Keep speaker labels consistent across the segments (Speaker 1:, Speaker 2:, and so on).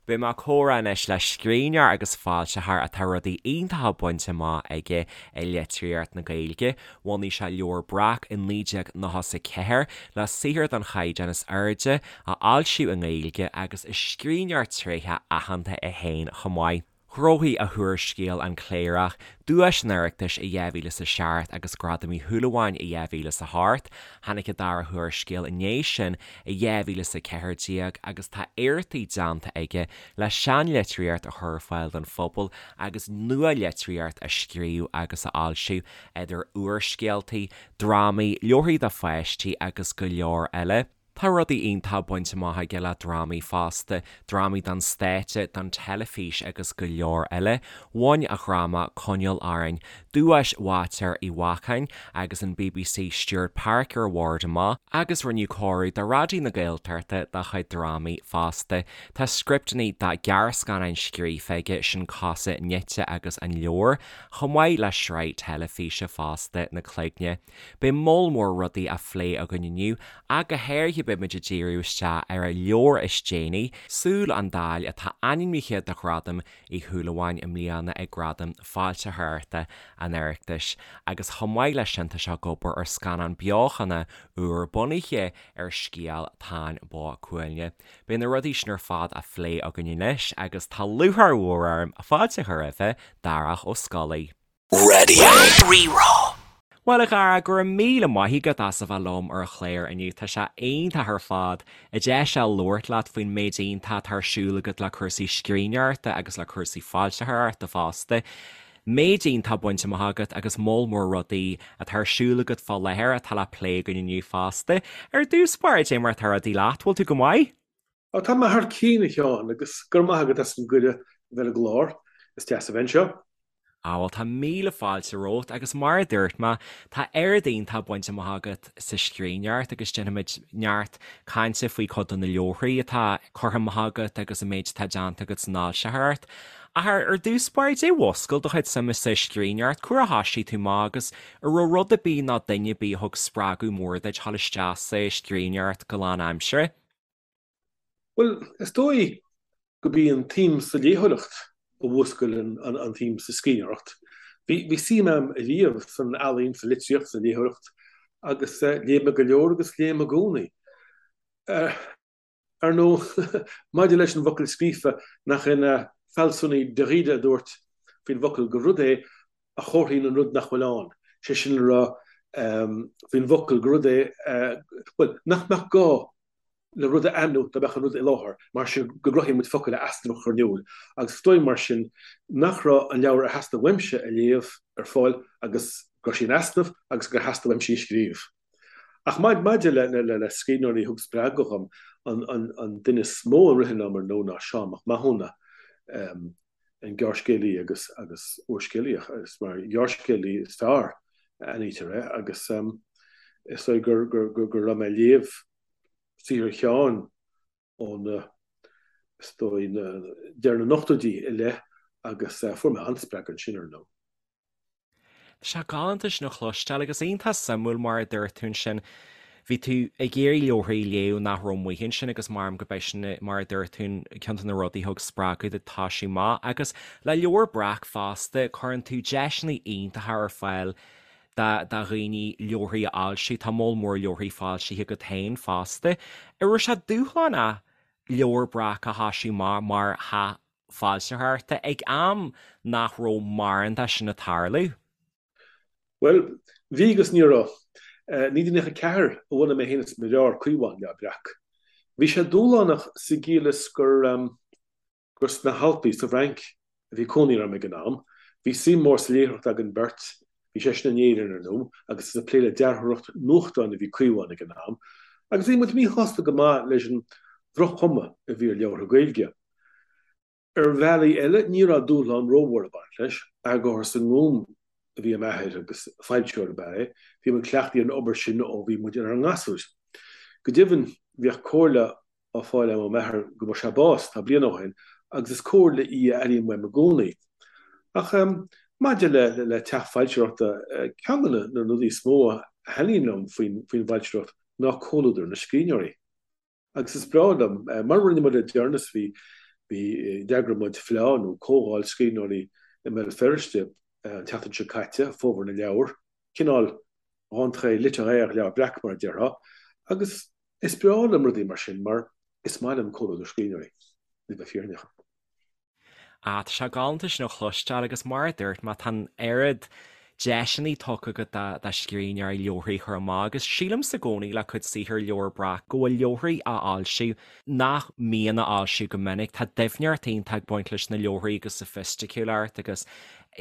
Speaker 1: Beidh mé ag comhrá anois le scríbhneoir agus foilsitheoir atá rudaí iontacha bainte amach aige i litríocht na Gaeilge. Bhunaigh sé Leabhar Breac i 1994 le saothar den chaighdeán is airde a fhoilsiú i nGaeilge agus is scríbhneoir tréitheach aitheanta é féin chomh maith. Ghnóthaigh a húrscéal An Cléireach duais an Oireachtais i 2007 agus Gradam Uí Shúilleabháin i 2008. Tháinig a dara húrscéal i ndiaidh sin i 2014 agus tá iarrachtaí déanta aige le seanlitríocht a chur ar fáil don phobal agus nua-litríocht a scríobh agus a fhoilsiú, idir úrscéaltaí, drámaí, leabharthaí do pháistí agus go leor eile. Tá rudaí iontacha bainte amach aige le drámaí fosta, drámaí don stáitse, don teilifís agus go leor eile. Bhain a dhráma Coinneáil Orainn duais Bháitéar Uí Bheacháin agus an bbc Stewart Parker Award amach agus rinneadh cóiriú do Raidió na Gaeltachta dá chuid drámaí fosta. Tá scripteanna do ghearrscannáin scríofa aige, sin Cosa Nite agus An Leabhar, chomh maith le sraith teilifíse fosta, Na Cloigne. Beidh moll mór rudaí á phlé againn inniu, ach go háirithe beidh muid ag díriú isteach ar a leabhar is déanaí, Súil an Daill, atá ainmnithe do Ghradam Uí Shúilleabháin i mbliana ag Gradaim Foilsitheoireachta an Oireachtais, agus chomh maith leis sin tá sé ag obair ar scannán beochana úr bunaithe ar scéal Táin Bó Cuailgne. Beidh na rudaí sin ar fad á phlé againn anois agus tá lúcháir mhór orm fáilte a chur roimhe, Darach Ó Scolaí.
Speaker 2: Raidió Rí-Rá.
Speaker 1: Bhuel a Dhara, go raibh míle maith agat as a bheith liom ar an chlár inniu. Tá sé iontach ar fad an deis a labhairt leat faoin méid iontach atá ar siúl agat le cúrsaí scríbhneoireachta agus le cúrsaí foilsitheoireachta fosta. Méid iontach bainte amach agat agus moll mór rudaí atá ar siúl agat fá láthair atá le plé againn inniu fosta. Ar dtús báire, cad é mar atá rudaí leat, bhfuil tú go maith?
Speaker 3: Ó, tá mé thar cionn, a Sheáin, agus go raibh maith agat as an gcuireadh a bheith ar an gclár. Is deas a bheith anseo.
Speaker 1: Á, bhuel, tá míle fáilte romhat, agus mar a dúirt mé, tá oiread iontach bainte amach agat sa scríbhneoireacht agus déanfaimid neart cainte faoi chuid de na leabharthaí atá curtha amach agat agus an méid atá déanta agat san fhoilsitheoireacht. Ach ar dtús báire, cad é a mhúscail do chuid suime sa scríbhneoireacht, cá huair a thoisigh tú amach agus an raibh rud ar bith nó duine ar bith a thug spreagadh mór duit dhul isteach sa scríbhneoireacht go lánaimseartha?
Speaker 3: Bhuel, is dóigh gurb í an tsuim sa léitheoireacht a mhúscail an tsuim sa scríbhneoireacht. Bhí suim agam ariamh san ealaín, sa litríocht, sa léitheoireacht agus léigh mé go leor agus léim i gcónaí. Ar ndóigh, maidir leis an bhfocal scríofa, nach é an fealsúnaí Derrida a dúirt faoin bhfocal gur rud é a chomharthaíonn an rud nach bhfuil ann, sé sin le rá faoin bhfocal gur rud é, bhuel, nach mbeadh gá le rud a ainmniú dá mbeadh an rud i láthair, mar sin go gcruthaíonn muid focail le easnamh a chur in iúl, agus is dóigh mar sin nach raibh an leabhar ar theastaigh uaimse a léamh ar fáil agus go raibh sé in easnamh agus gur theastaigh uaimse í a scríobh. Ach maidir le scríbhneoirí a thug spreagadh dhom, an duine is mó a ritheann liom ar ndóigh ná Seán Mac Mathúna, an gearrscéalaí agus agus úrscéalaí, is mar ghearrscéalaí is fearr a aithnítear é agus is dóigh gur go raibh mé ag léamh saothar Sheáin ó na, is dóigh, deireadh na n-ochtóidí i leith agus fuair mé an-spreagadh ansin ar ndóigh.
Speaker 1: Tá sé galánta sin a chloisteáil agus iontach suimiúil mar a dúirt tú ansin, bhí tú ag iarraidh leabharthaí a léamh nach raibh amuigh ansin agus maram go b'é sin mar a dúirt tú ceann de na rudaí a thug spreagadh duit toisiú amach agus le Leabhar Breac fosta cuireann tú deiseanna iontacha ar fáil do dhaoine leabharthaí a fhoilsiú, tá moll mór leabharthaí foilsithe agat féin fosta. An raibh sé dúshlánach Leabhar Breac a thoisiú amach mar theach foilsitheoireachta ag am nach raibh mórán de sin ag tarlú?
Speaker 3: Bhuel, bhí agus ní raibh. 1994 a bhunaigh mé féin is mo dheartháir Caomhán Leabhar Breac. Bhí sé dúshlánach sa gciall is gur gur sna hAlpaí sa bhFrainc a bhí cónaí orm ag an am. Bhí suim mhór sa léitheoireacht againn beirt, bhí seisean in Éirinn ar ndóigh, agus is ag plé le dearthóireacht nuachtáin a bhí Caomhán ag an am, agus bhí muid míshásta go maith leis an droch-chuma a bhí ar leabhartha Gaeilge. Ar bhealaí eile, ní raibh dúshlán rómhór ag baint leis. Eagarthóir sa nGúm a bhí i m'athair agus foilsitheoir ab ea é. Bhí muid cleachtaithe ar an obair sin ó bhí muid inár ngasúir. Go deimhin, bhíodh comhairle á fáil agam ó m'athair go bhfuair sé bás, tá bliain ó shin, agus is comhairle í a airím uaim i gcónaí. Ach maidir le teach foilsitheoireachta, ceann de na rudaí is mó a thaitníonn liom faoin bhfoilsitheoireacht ná comhluadar na scríbhneoirí. Agus is breá liom, mar a rinne muid le deireanas, bhí Bhí, d'eagraigh muid fleá nó comhdháil scríbhneoirí i mBéal Feirste an tseachtain seo caite, Fómhar na Leabhar, cineál rentrée littéraire Leabhar Breac mar a déarfá, agus is breá liom rudaí mar sin mar is maith liom comhluadar scríbhneoirí, le bheith fírinneach.
Speaker 1: Ah, tá sé galánta sin a chloisteáil agus mar a dúirt mé, tá an oiread deiseanna tugtha agat do scríbhneoirí leabharthaí a chur amach agus sílimse i gcónaí le cuid saothar Leabhar Breac go bhfuil leabharthaí á fhoilsiú nach mbíonn á fhoilsiú go minic. Tá doimhneacht iontach ag baint leis na leabharthaí agus soifisticiúlacht agus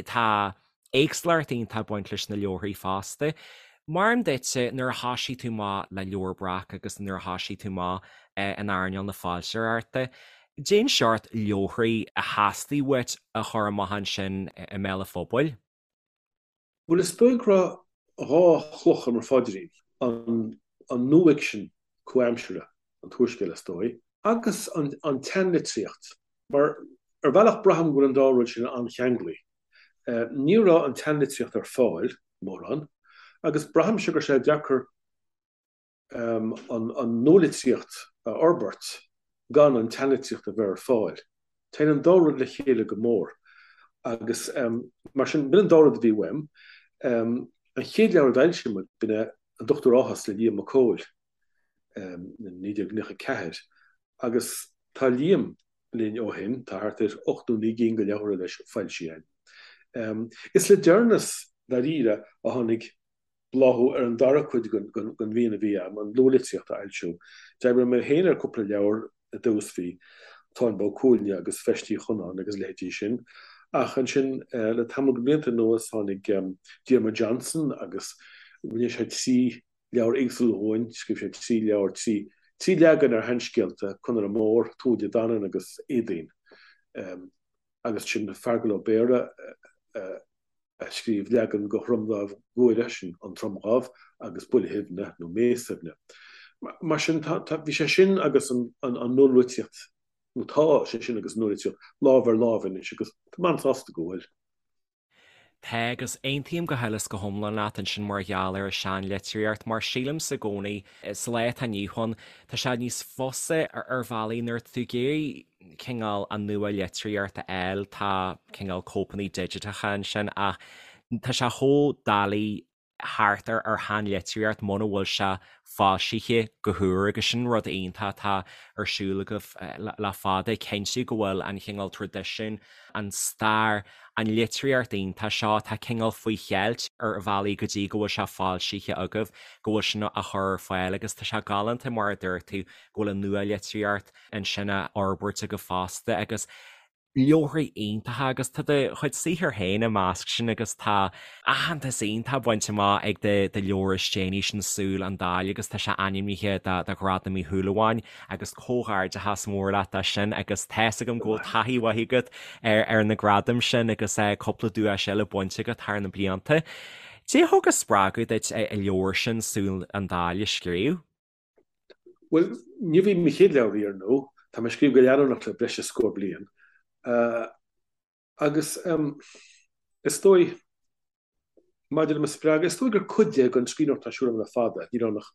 Speaker 1: tá éagsúlacht iontach ag baint leis na leabharthaí fosta. Mar dhea duitse, nuair a thoisigh tú amach le Leabhar Breac agus nuair a thoisigh tú amach in earnáil na foilsitheoireachta, cén seort leabharthaí a theastaigh uait a chur amach ansin i mbéal an phobail?
Speaker 3: Bhuel, is dóigh go raibh 2 chloch ar mo phaidrín, an nuafhicsean comhaimseartha, an t-úrscéal is dóigh, agus an tseanlitríocht, mar ar bhealach braithim go bhfuil an dá rud sin an-cheanglaí. Ní raibh an tseanlitríocht ar fáil, mórán, agus braithimse go raibh sé deacair an nualitríocht a fhorbairt gan an tseanlitríocht a bheith ar fáil. Téann an dá rud le chéile go mór agus mar sin, b'in an dá rud a bhí uaim. An chéad leabhar a d'fhoilsigh muid, b'in é An Dochtúir Áthas le Liam Mac Cóil in 1994 agus tá Liam linn ó shin, tá thart ar 8 nó 9 gcinn de leabhartha leis foilsithe againn. Is le deireanas, dáiríre, a tháinig bláthú ar an dara cuid den mhian a bhí agam, an luathlitríocht a fhoilsiú. D'oibrigh mé féin ar cúpla leabhar i dtús, bhí Táin Bó Cuailgne agus Feist Uí Chonáin agus a leithéidí sin, ach ansin le tamall de bhlianta anuas tháinig Diarmuid Johnson agus rinne sé 3 leabhar éagsúla dhúinn, scríobh sé 3 leabhar, 3 trí leagan ar sheanscéalta, Conaire Mór, Tuatha Dé Danann agus Éadaoin. Agus sin Feargal Ó Béarra a scríobh leagan de Thromdhámh Guaire, sin An Tromdhámh, agus Buile Shuibhne nó Mé Suibhne. Mar sin, tá, tá, bhí sé sin agus an, an, an nualitríocht, nó tá sé sin agus an nualitríocht lámh ar láimh anois agus tá mé an-sásta go bhfuil.
Speaker 1: Tá, agus aontaím go huile is go hiomlán leat ansin mar gheall ar an seanlitríocht, mar sílimse i gcónaí, sa lá atá inniu ann, tá sé níos fusa ar bhealaí nuair atá tú ag iarraidh cineál an nua-litríocht a fháil, tá cineál cóipeanna digiteacha ansin ach tá sé chomh doiligh thart ar ar sheanlitríocht muna bhfuil sé foilsithe go húr agus sin rud iontach atá ar siúl agaibh le fada, cinntiú go bhfuil an chineál traidisiún, an stair, an litríocht iontach seo atá cineál faoi cheilt ar bhealaí go dtí go bhfuil sé foilsithe agaibh, go bhfuil sin á chur ar fáil agus tá sé galánta mar a dúirt tú go bhfuil an nua-litríocht ansin á fhorbairt agaibh fosta agus leabharthaí iontacha agus tá do chuid saothair féin i measc sin agus tá aitheantas iontach bainte amach ag do do leabhar is déanaí sin Súil an Daill agus tá sé ainmnithe do do Ghradam Uí Shúilleabháin agus comhghairdeachas mór leat as sin agus tá's agam go bhfuil taithí mhaith agat ar ar na gradaim sin agus cúpla duais eile bainte agat thar na blianta. Cad é a thug an spreagadh duit an leabhar sin Súil an Daill a scríobh?
Speaker 3: Bhuel, níorbh í mo chéad leabhar í, ar ndóigh. Tá mé ag scríobh go leanúnach le breis is scór bliain. Agus is dóigh, maidir le mo spreagadh, is dóigh gur cuid de den scríbhneoireacht atá ar siúl agam le fada. Ní raibh ann ach,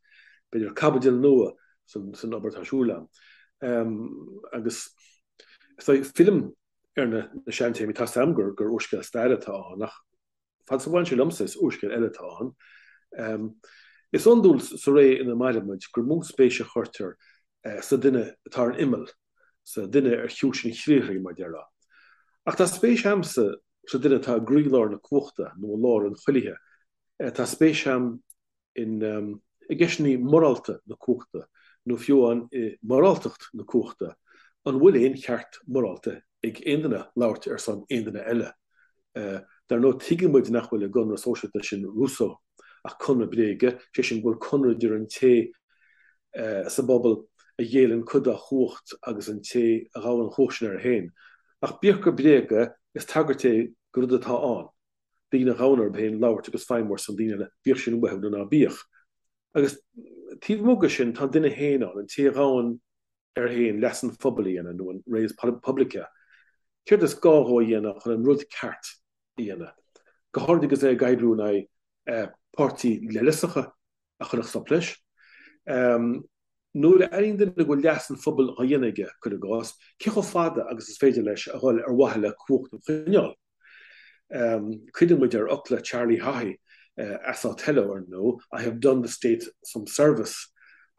Speaker 3: b'fhéidir, caibidil nua san obair atá ar siúl agam. Agus is dóigh, fillim ar na seantéamaí. Tá's agam gur úrscéal staire atá ann, ach Fad is a bhaineann sé liomsa, is úrscéal eile atá ann. Is iondúil sa ré ina mairimid gur mó spéis a chuirtear sa duine atá ar an imeall, sa duine ar chiúis an chriathraigh, mar déarfá. Ach tá spéis a'msa sa duine atá i gcroílár na cumhachta nó i lár an chuilithe. Tá spéis a'm in i gceisteanna morálta na cumhachta, nó fiú amháin i moráltacht na cumhachta, an bhfuil aon cheart morálta ag aon duine labhairt ar son aon duine eile? Dar ndóigh, tuigeann muid nach bhfuil i gconradh sóisialta sin Rousseau ach conradh bréige, sé sin go bhfuil conradh idir an té sa bpobal a ghéilleann cuid dá chumhacht agus an té a ghabhann an chumhacht sin air féin. Ach bíodh gur bréag é, is tagairt é do rud atá ann. daoine a ghabhann orthu féin labhairt agus feidhmiú ar son daoine eile, bíodh sin uathu nó ná bíodh. Agus taobh amuigh de sin, tá an duine féin ann, an té a ghabhann air féin leas an phobail a dhéanamh, nó an res publica. Céard is gá dhó a dhéanamh chun an rud ceart a dhéanamh? Go háirid agus é ag oibriú in aghaidh páirtí leithleasacha a chuirfeadh stop leis. Nuair a airíonn duine go bhfuil leas an phobail á dhéanamh aige, cuir i gcás, cé chomh fada agus is féidir leis a dhul ar mhaithe le cumhacht a choinneáil? Cuimhníonn muid ar fhocla Charlie Haughey as Othello, ar ndóigh, I have done the state some service,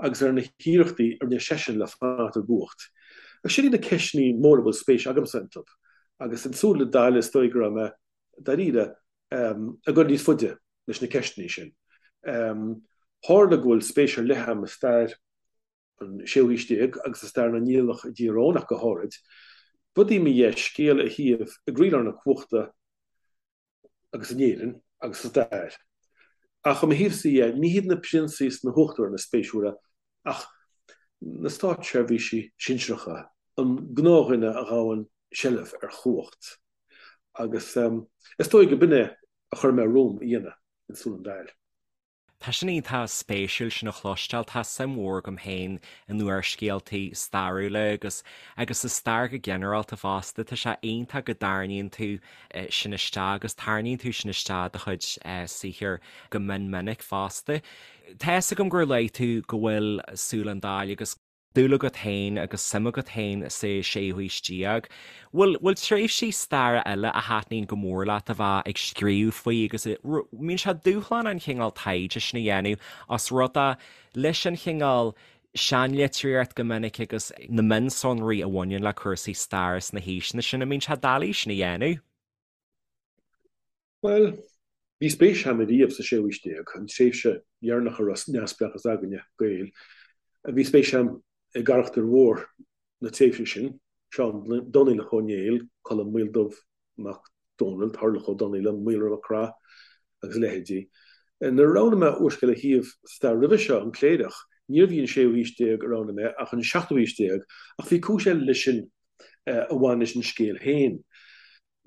Speaker 3: agus ar na hiarrachtaí a rinne seisean le fanacht i gcumhacht. Agus sin iad na ceisteanna móra a bhfuil spéis agamsa iontu. Agus in Súil an Daill is dóigh go raibh mé, dáiríre, ag dul níos faide leis na ceisteanna sin. Tharla go bhfuil spéis ar leith agam i stair an séú haois déag agus i stair na Niallach i dTír Eoghain ach go háirid. B'fhada í mo dheis scéal a shuíomh i gcroílár na cumhachta agus in Éirinn agus sa stair. Ach ó mo thaobhsa dhe, ní hiad na prionsaí is na huachtaráin is spéisiúla ach na státseirbhísigh sinsearacha, an gnáthdhuine a ghabhann seilbh ar chumhacht. Agus is dóigh go b'in é a chuir mé romham a dhéanamh in Súil an Daill.
Speaker 1: Tá sin iontach spéisiúil sin a chloisteáil. Tá suim mhór agam féin in úrscéaltaí stairiúla agus agus sa stair go ginearálta fosta. Tá sé iontach go dtarraingíonn tú sin isteach agus tarraingíonn tú sin isteach i do chuid saothair go mion minic fosta. Tá fhios agam gur luaigh tú go bhfuil Súil an Daill agus. dúil agat féin agus suim agat féin sa séú haois déag. Bhfuil, bhfuil tréimhsí staire eile a thaitníonn go mór leat a bheith ag scríobh faoi agus a, mbíonn sé dúshlánach an chineál taighde sin a dhéanamh os rud é leis an chineál seanlitríocht go minic agus na mionsonraí a bhaineann le cúrsaí staire sna haoiseanna sin, an mbíonn sé doiligh sin a dhéanamh?
Speaker 3: Bhuel, bhí spéis agam ariamh sa séú haois déag, an tréimhse dheireanach a raibh neamhspleáchas againne, Gaeil. Bhí spéis agam i gcarachtair mhór na tréimhse sin, Seán Donnaíleach Ó Néill, Colm Maoldubh Mac Dónaill, Toirdhealbhach Ó Donnaíle, Maolra Mac Craith agus a leithéidí. Nuair a roghnaigh mé úrscéal a shuíomh sa stair roimhe seo, An Cléireach, níorbh í an séú haois déag a roghnaigh mé ach an seachtú haois déag, ach bhí cúis eile leis sin a bhain leis an scéal féin.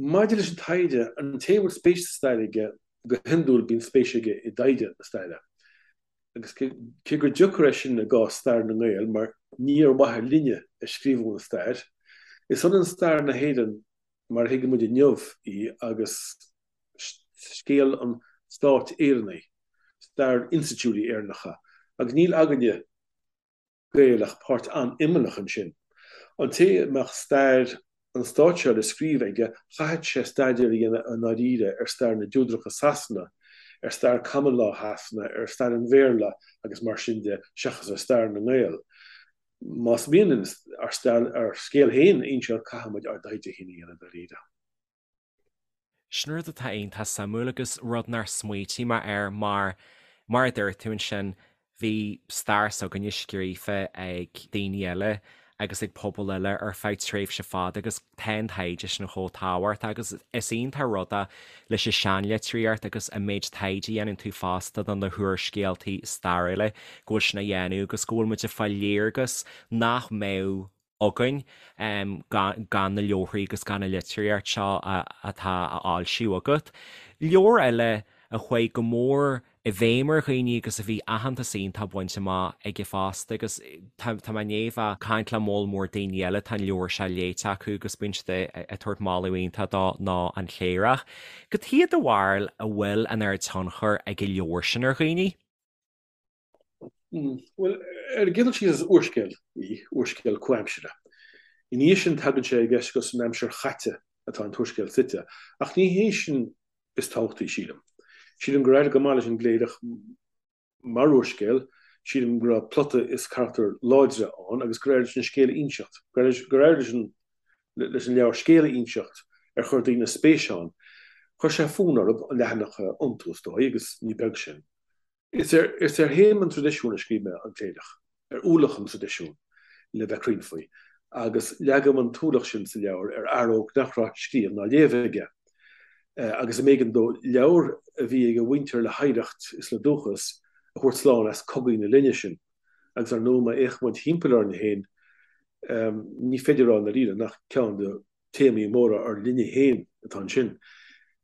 Speaker 3: Maidir leis an taighde, an té a bhfuil spéis sa stair aige, go hiondúil bíonn spéis aige i dtaighde na staire. Agus cé gur deacair é sin i gcás stair na nGael, mar ní ar mhaithe linne a scríobhadh an stair, is ionann stair na hÉireann mar a thuigeann muid inniu í agus scéal an stáit Éireannaigh, stair institiúidí Éireannacha, agus níl againne, Gaeil ach páirt an-imeallach ansin. An té a mbeadh stair an stáit seo le scríobh aige, chaithfeadh sé staidéar a dhéanamh i ndáiríre ar stair na dTúdarach i Sasana, ar stair Common Law Shasana, ar stair an Bhéarla agus mar sin de, seachas ar stair na nGael. Más mian linn ár scéal féin a inseacht, caithfidh muid ár dtaighde féin a dhéanamh i ndáiríre.
Speaker 1: Sin rud atá iontach suimiúil agus rud nár smaoitigh mé air mar, mar a dúirt tú ansin, bhí stair s'againne scríofa ag daoine eile agus ag pobail eile ar feadh tréimhse fada agus tá an taighde sin chomh tábhachtach agus is iontach rud é leis an seanlitríocht agus an méid taighde a dhéanann tú fosta do na húrscéaltaí stairiúla go bhfuil sin á dhéanamh agus go bhfuil muid ag fáil léargas nach mbeadh againn gan na leabharthaí agus gan an litríocht seo atá á fhoilsiú agat. Leabhar eile a chuaigh go mór i bhfeidhm ar dhaoine agus a bhí aitheantas iontach bainte amach aige fosta agus tá mé i ndiaidh bheith ag caint le moll mór daoine eile tá an leabhar seo léite acu agus bíonn siad ag tabhairt moladh iontach dó ná An Cléireach. Cad chuige do bharúil a bhfuil an oiread tionchair ag an leabhar sin ar dhaoine?
Speaker 3: Bhuel, ar an gcéad dul síos is úrscéal í, úrscéal comhaimseartha. Ina dhiaidh sin tagann sé i gceist gur san aimsir chaite atá an t-úrscéal suite, ach ní hé sin is tábhachtaí, sílim. Sílim gur éirigh go maith leis An gCléireach mar úrscéal, sílim go raibh plota is carachtair láidre ann agus gur éirigh leis an scéal a inseacht, gur éirigh leis an leis an leabhar scéal a inseacht ar chuir daoine spéis ann. Chuir sé fonn orthu an leathanach a iontú, is dóigh, agus ní beag sin. Is ar théama an traidisiúin a scríobh mé An Cléireach, ar ualach an traidisiúin, le bheith cruinn faoi, agus leagaim an t-ualach sin sa leabhar ar fhear óg nach raibh scríobh ná léamh aige, agus a mb'éigean dó leabhar a bhí ag a mhuintir le hoidhreacht is le dúchas a thabhairt slán as cogaí na linne sin. Agus ar ndóigh, má fhéachann muid thimpeall orainn féin, ní féidir a rá i ndáiríre nach ceann de téamaí móra ár linne féin atá ansin.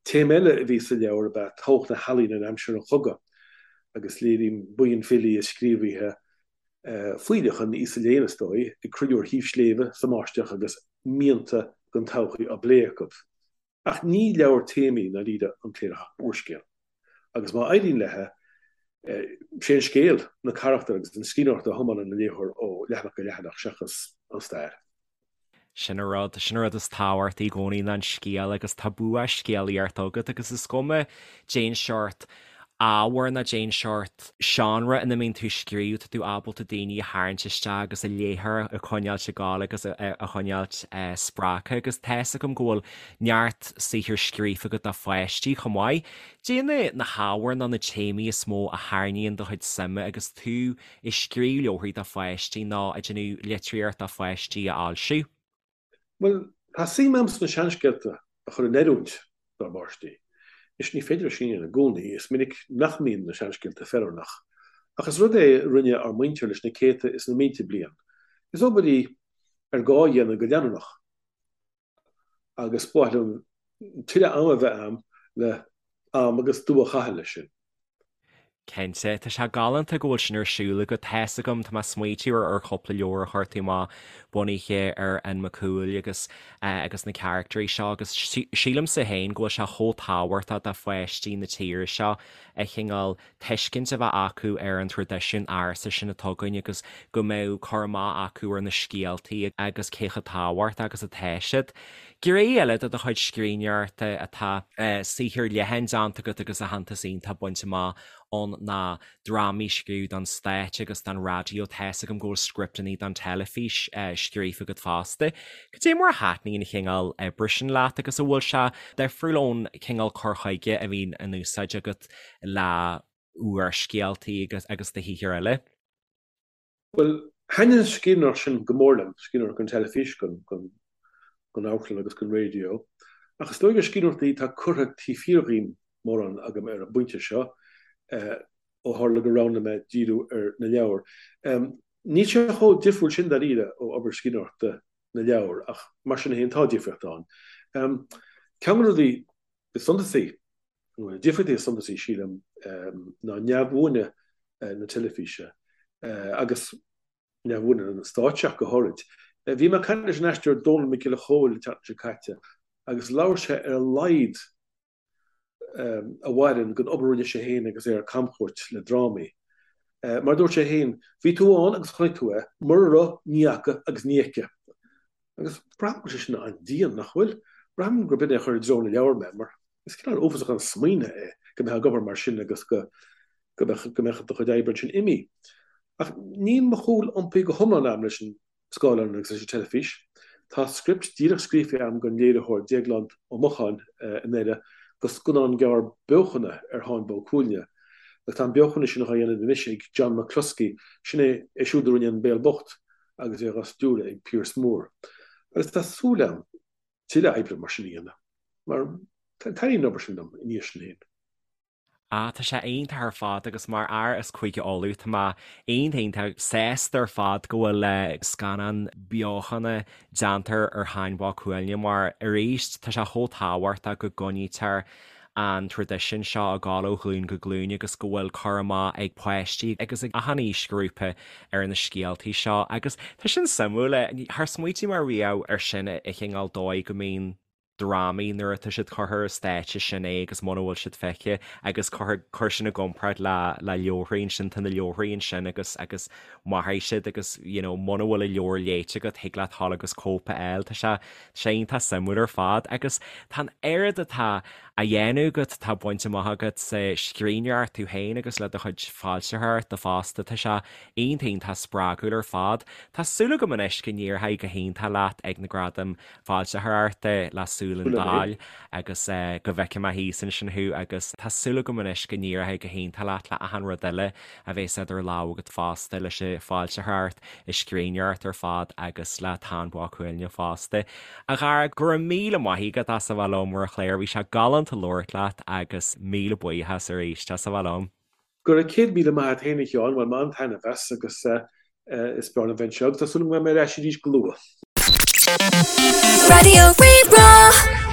Speaker 3: Téama eile a bhí sa leabhar ab ea tábhacht na healaíne in aimsir an chogaidh, agus léirím buíon filí is scríobhaithe, fuílleach an aosa léinn is dóigh, ag cruinniú ar thaobh sléibhe sa mbáisteach agus mianta don todhchaí á bplé acu. Ach ní leabhar téamaí i ndáiríre An Cléireach ach úrscéal. Agus má éiríonn léi. Sé an scéal, na carachtair agus an scríbhneoireacht a thiomáineann an léitheoir ó leathanach go leathanach seachas an stair.
Speaker 1: Sin an rud, sin an rud is tábhachtaí i gcónaí ná an scéal agus tá bua scéalaíochta agat agus is cuma cén seort ábhair ná cén seort seánra ina mbíonn tú ag scríobh, tá tú ábalta daoine a tharraingt isteach agus an léitheoir a choinneáilt ag gabháil agus a choinneáilt spreagtha agus tá 'fhios agam go bhfuil neart saothar scríofa agat do pháistí chomh maith. Cad é na hábhair nó na téamaí is mó a tharraingíonn do chuid suime agus tú ag scríobh leabharthaí do pháistí nó ag déanamh litríocht do pháistí a fhoilsiú?
Speaker 3: Bhuel, tá suim agam sna seanscéalta a chur in oiriúint dár bpáistí. Anois, ní féidir é sin a dhéanamh i gcónaí, is minic nach mbíonn na seanscéalta feiliúnach. Ach is rud é a rinne ár muintir leis na céadta is na mílte bliain. Is obair í ar gá a dhéanamh go leanúnach. Agus ba mhaith liom tuilleadh ama a bheith agam le am agus dua a chaitheamh leis sin.
Speaker 1: Cinnte, tá sé galánta go bhfuil sin ar siúl agat. Tá 'fhios agam, tá mé ag smaoitiú ar ar chúpla leabhar a chuir tú amach bunaithe ar Fhionn Mac Cumhaill agus agus na caractairí seo agus sílimse féin go bhfuil sé chomh tábhachtach do pháistí na tíre seo a chineál tuiscint a bheith acu ar an traidisiún ársa sin atá againn agus go mbeadh cur amach acu ar na scéaltaí agus cé chomh tábhachtach agus atá siad. Gné eile de do chuid scríbhneoireachta atá saothar leathan déanta agat agus aitheantas iontach bainte amach ann ná drámaí a scríobh don stáitse agus don raidió. Tá 'fhios agam go bhfuil scripteanna don teilifís scríofa agat fosta. Cad é mar a thaitníonn an chineál oibre sin leat agus an bhfuil sé difriúil ón chineál cur chuige a bhíonn in úsáid agat le úrscéaltaí agus agus do shaothair eile?
Speaker 3: Bhuel, thaitnigh an scríbhneoireacht sin go mór liom, scríbhneoireacht don teilifís, don amharclann agus don raidió. Ach is dóigh gur scríbhneoireachtaí atá curtha taobh thiar dhíom mórán agam ar an bpointe seo, ó tharla gur roghnaigh mé díriú ar na leabhair. Níl sé chomh difriúil sin dáiríre ó obair scríbhneoireachta na leabhar, ach mar sin féin tá difríocht ann. Ceann de na rudaí is suntasaí, nó na difríochtaí is suntasaí, sílim, ná neamhbhuaine na teilifíse agus neamhbhuaine na stáitse ach go háirid. Bhí mé ag caint leis an aisteoir Dónall Mac Giolla Chóill an tseachtain seo caite agus labhair sé ar a laghad a mhaireann den obair a rinne sé féin agus é ar camchuairt le drámaí. Mar a dúirt sé féin, bhí tú ann agus chonaic tú é, mura raibh, ní fhaca agus ní fheicfidh. Agus braithim go bhfuil sé sin an-dian, nach bhfuil? Braithim gurb in é a chuir i dtreo na leabhar mé, mar is cineál uafásach an smaoineamh é go mbeifeá ag obair mar sin agus go go mbeadh go mbeadh do chuid oibre ansin imithe. Ach níl mo chúl iompaithe go hiomlán agam leis an scáileán agus leis an teilifís. Tá script díreach scríofa agam don léiritheoir Déaglán Ó Mocháin i nDoire do scannán gearr beochana ar Tháin Bó Cuailgne. Agus tá an beochan sin á dhéanamh anois ag John McCluskey, sin é é siúd a rinne An Béal Bocht agus é á stiúradh ag Pearse Moore. Agus tá súil agam tuilleadh oibre mar sin a dhéanamh, mar taitníonn an obair sin liom ina dhiaidh sin féin.
Speaker 1: Ah, tá sé iontach ar fad agus mar fhear as Cúige Uladh, tá mé iontach iontach sásta ar fad go bhfuil scannán beochana déanta ar Tháin Bó Cuailgne mar arís tá sé chomh tábhachtach go gcoinnítear an traidisiún seo ag gabháil ó ghlúin go glúin agus go bhfuil cur amach ag páistí agus ag achan aoisghrúpa ar na scéaltaí seo agus tá sin suimiúil, char smaoitigh mé riamh ar sin an cineál dóigh go mbíonn drámaí nuair atá siad curtha ar stáitse sin é agus muna bhfuil siad feicthe agus cuir cuir sin i gcomparáid le le leabharthaí ansin tá na leabharthaí ansin agus agus mairfidh siad agus you know muna bhfuil an leabhar léite agat thig leat dhul agus cóip a fháil tá sé tá sé iontach suimiúil ar fad agus tá an oiread atá á dhéanamh agat atá bainte amach agat sa scríbhneoireacht tú féin agus le do chuid foilsitheoireachta fosta tá sé iontach iontach spreagúil ar fad. Tá súil agam anois go n-éireoidh go hiontach leat ag na Gradaim Foilsitheoireachta le Súil an Daill agus go bhfeicfidh mé thíos ansin thú agus tá súil agam anois go n-éireoidh go hiontach leat le achan rud eile a bhéas idir lámha agat fosta leis an bhfoilsitheoireacht, an scríbhneoireacht ar fad agus le Táin Bó Cuailgne fosta. A Dhara, go raibh míle maith agat as a bheith liom ar an chlár, bhí sé galánta labhairt leat agus míle buíochas arís as a bheith liom.
Speaker 3: Go raibh 100,000 maith agat féin a Sheáin, bhain mé an-taitneamh as agus is breá liom bheith anseo agus tá súil agam go mbeidh mé ar ais arís go luath.
Speaker 2: Raidió Rí-Rá.